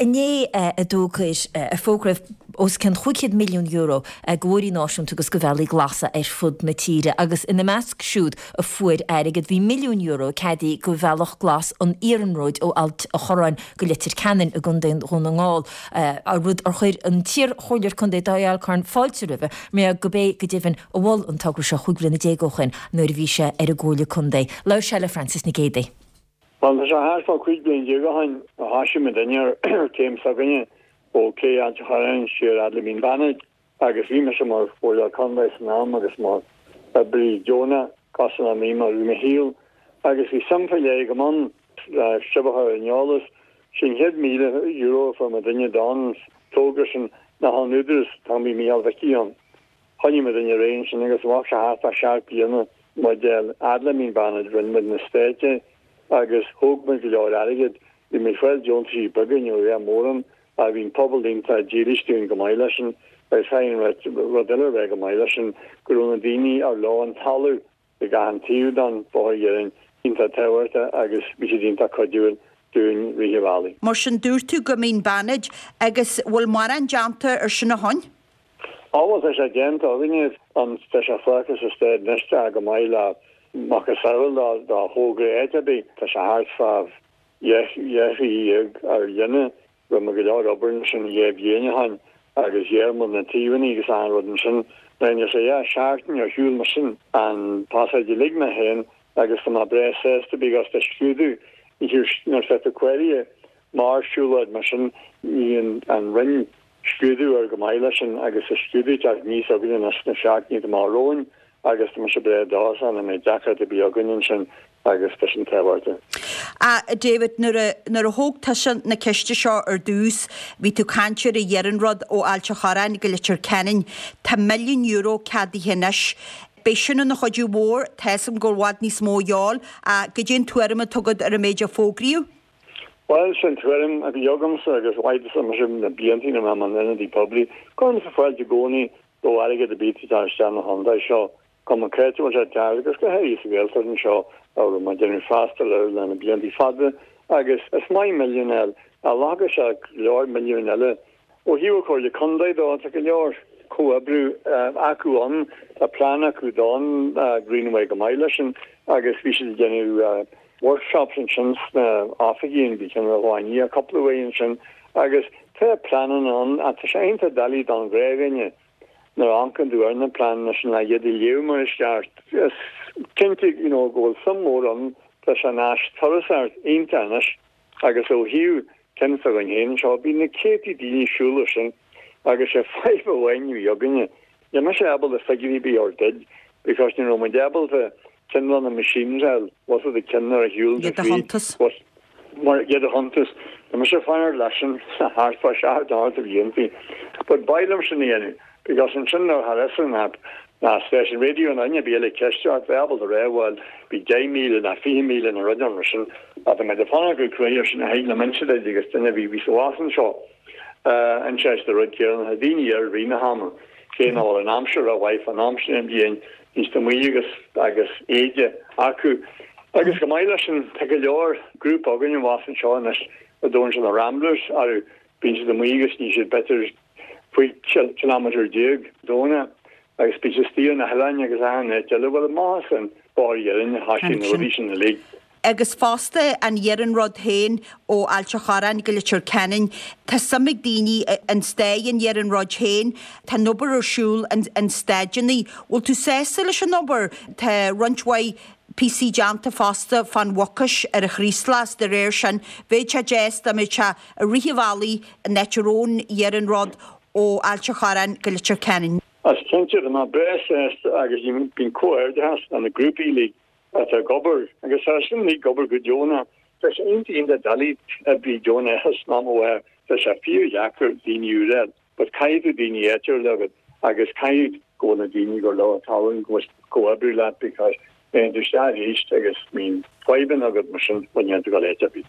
inné a d'fhógair, a fógraíodh os cionn €500 milliún do bhóithrí náisiúnta agus do bhealaí glasa ar fud na tíre agus ina measc siúd a fuair airgead bhí €1 milliún ceadaithe do Bhealach Glas an Iarnróid ó Ailt a' Chorráin go Leitir Ceanainn i gContae Dhún na nGall, rud ar chuir an t-iar-chomhairleoir contae Dáithí Alcorn fáilte roimhe mar gurb é go deimhin a mhol an togra seo 15 bhliana ó shin nuair a bhí sé ar an gComhairle Contae. Labhair sé le Frances Nic Géadaigh. Bhuel, tá sé thart fá 15 bliain ó shin a thoisigh muidinne ar an chéim s'againne ó Cé Ailt a' Chorráin siar fhad le Mín Bannaid agus bhí mise mar Chomhairleoir Contae san am agus mar oibrí deonach cosúil le mé mar i mo shaol agus bhí suim faoi leith agam ann le sibh a chur ar an eolas. Sé an chéad €1,000 a fuair muidinne don togra sin ná ón Údarás, an t-am bhí Mícheál Mhicí ann. Choinnigh muidinne ar aghaidh ansin agus bheadh sé thart fá sheacht bliana muid a fhad le Mín Bannaid, rinne muid na stáití agus thóg muid go leor airgid. Bhí muid ag fáil deontaisí beaga, ní raibh mórán, ach bhí an pobal iontach dílis dúinn go maith leis sin agus caithfidh an rud eile a rá go maith leis sin go raibh na daoine ar leo an talamh ag achan taobh den bhóthar iarainn iontach tábhachtach agus bhí siad iontach cuidiúil dúinn rith an bhealaigh. Mar sin dúirt tú go Mín Bannaid agus bhfuil mórán déanta ar sin ó shoin? Á bhuel tá sé déanta againne an tá sé fágtha sa staid anois tá go maith le macasamhail dá thogra áit ar bith tá sé thart fá dheich mhí dhéag ar líne Rinne muid go leor obair ansin dhé bhliain ó shin agus ghearr muid na taobhanna agus achan rud ansin. Rinne sé dhá sheachtain ar shiúl mar sin an pasáid uilig mé féin agus tá mé breá sásta because tá scrúdú nuair atá tú cláraithe mar siúlóid mar sin ní an Roinn scrúdú ar go maith leis sin agus tá scrúdú ag teacht aníos againne anois sna seachtainí atá amach romhainn agus tá mise breá dóchasach nach mbeidh deacracht ar bith againn ansin agus tá sin tábhachtach. A David, nuair a, nuair a thóg tusa na ceiste seo ar dtús, bhí tú ag caint ar an iarnród ó Ailt a' Chorráin go Leitir Ceanainn. Tá €1 milliún ceadaithe anois. Beidh sin ina chuidiú mhór, tá 'fhios agam go bhfuil i bhfad níos mó a dhíobháil, ach goidé an tuairim atá agat ar an méid a fógraíodh? Bhuel, sin tuairim a bhí agamsa agus mhaith mise na blianta ina raibh mé mar ionadaí poiblí. Cuirimse fáilte i gcónaí do airgead ar bith atá ag teacht isteach na chontae seo. Cuma cá háit a bhfuil sé ag teacht agus go háirithe sa Ghaeltacht anseo a raibh mé ag déanamh freastal air le na blianta fada agus is maith milliún a fháil ach ghlacfadh sé go leor milliúin eile. Ó thaobh an Chomhairle Contae dó tá go leor comhoibriú acu ann, tá plean acu don Greenway go maith leis sin agus bhí siad ag déanamh workshops ansin sna oifigí an bhí ceann amháin cúpla uair ansin agus tá pleananna ann ach tá sé iontach doiligh don ghnáthdhuine Nuair a amharcann tú ar na pleananna sin le iad a léamh mar is ceart, is cinnte you know go bhfuil suim mhór ann, tá sé ina áis turasóireachta iontach anois agus ó thaobh ceann s'againn féin anseo, bhí na céadtaí daoine ag siúl air sin agus sé fadhb amháin a bhí againne, níl mise ábalta figiúirí ar bith a thabhairt duit because ní raibh muid ábalta ceann de na machines a fháil, was it the ceann ar a shiúl Iad a chuntas. Mar iad a chuntas. Tá mise ag fanacht leis sin thart fá sheacht nó ocht de bhlianta. But b'fhearr liom sin a dhéanamh because ansin nuair a tharla an app ná stáisiún raidió nó duine ar bith eile ag ceistiú ort bheith ábalta rá bhuel bhí 10,000 ná 20,000 nó rud mar sin. Ach tá mé ag fanacht go cruaidh ar sin a thig liom inse duit agus duine a bhí bhí sa bhás anseo anseo is de rud céanna tá daoine ar rith na hama cé nach bhfuil an aimsir rómhaith fán am sin den bhliain Bhí siad amuigh agus agus éide acu. Agus go maith leis sin, tá go leor grúpa againn abhus anseo anois a dtugann siad na Ramblers orthu. Bíonn siad amuigh agus ní siad b'fhéidir 15 kilometre Domhnach agus bíonn siad istigh ar na hoileáin agus achan áit eile. Bhuel, amach as an bóthar iarainn a thoisigh na rudaí sin uilig. Agus fosta an iarnród féin ó Ailt a' Chorráin go Leitir Ceanainn, tá suim ag daoine in staid an iarnróid féin, tá an obair ar siúl an staideanna. Bhfuil tú sásta leis an obair? Tá roinnt mhaith píosaí déanta fosta fán Mhucais ar an Chraoslach, de réir sin bheadh sé deas dá mbeadh sé i rith an bhealaigh an áit a raibh an iarnród ó Ailt a' Chorráin go Leitir Ceanainn. Is cinnte, tá mé breá sásta agus bíonn comhghairdeachas le na grúpaí uilig atá ag obair agus tá sin uilig ag obair go deonach. Tá sé iontach iontach doiligh oibrí deonach a shnamhadh, tá sé fíordheacair daoine úra a fháil but caithfidh tú daoine áitiúla agat agus caithfidh go bhfuil na daoine gur leo an talún go bhfuil comhoibriú leat because téann tú isteach arís agus bíonn fadhbanna agat mar sin bhuel níl tú ag dul áit ar bith.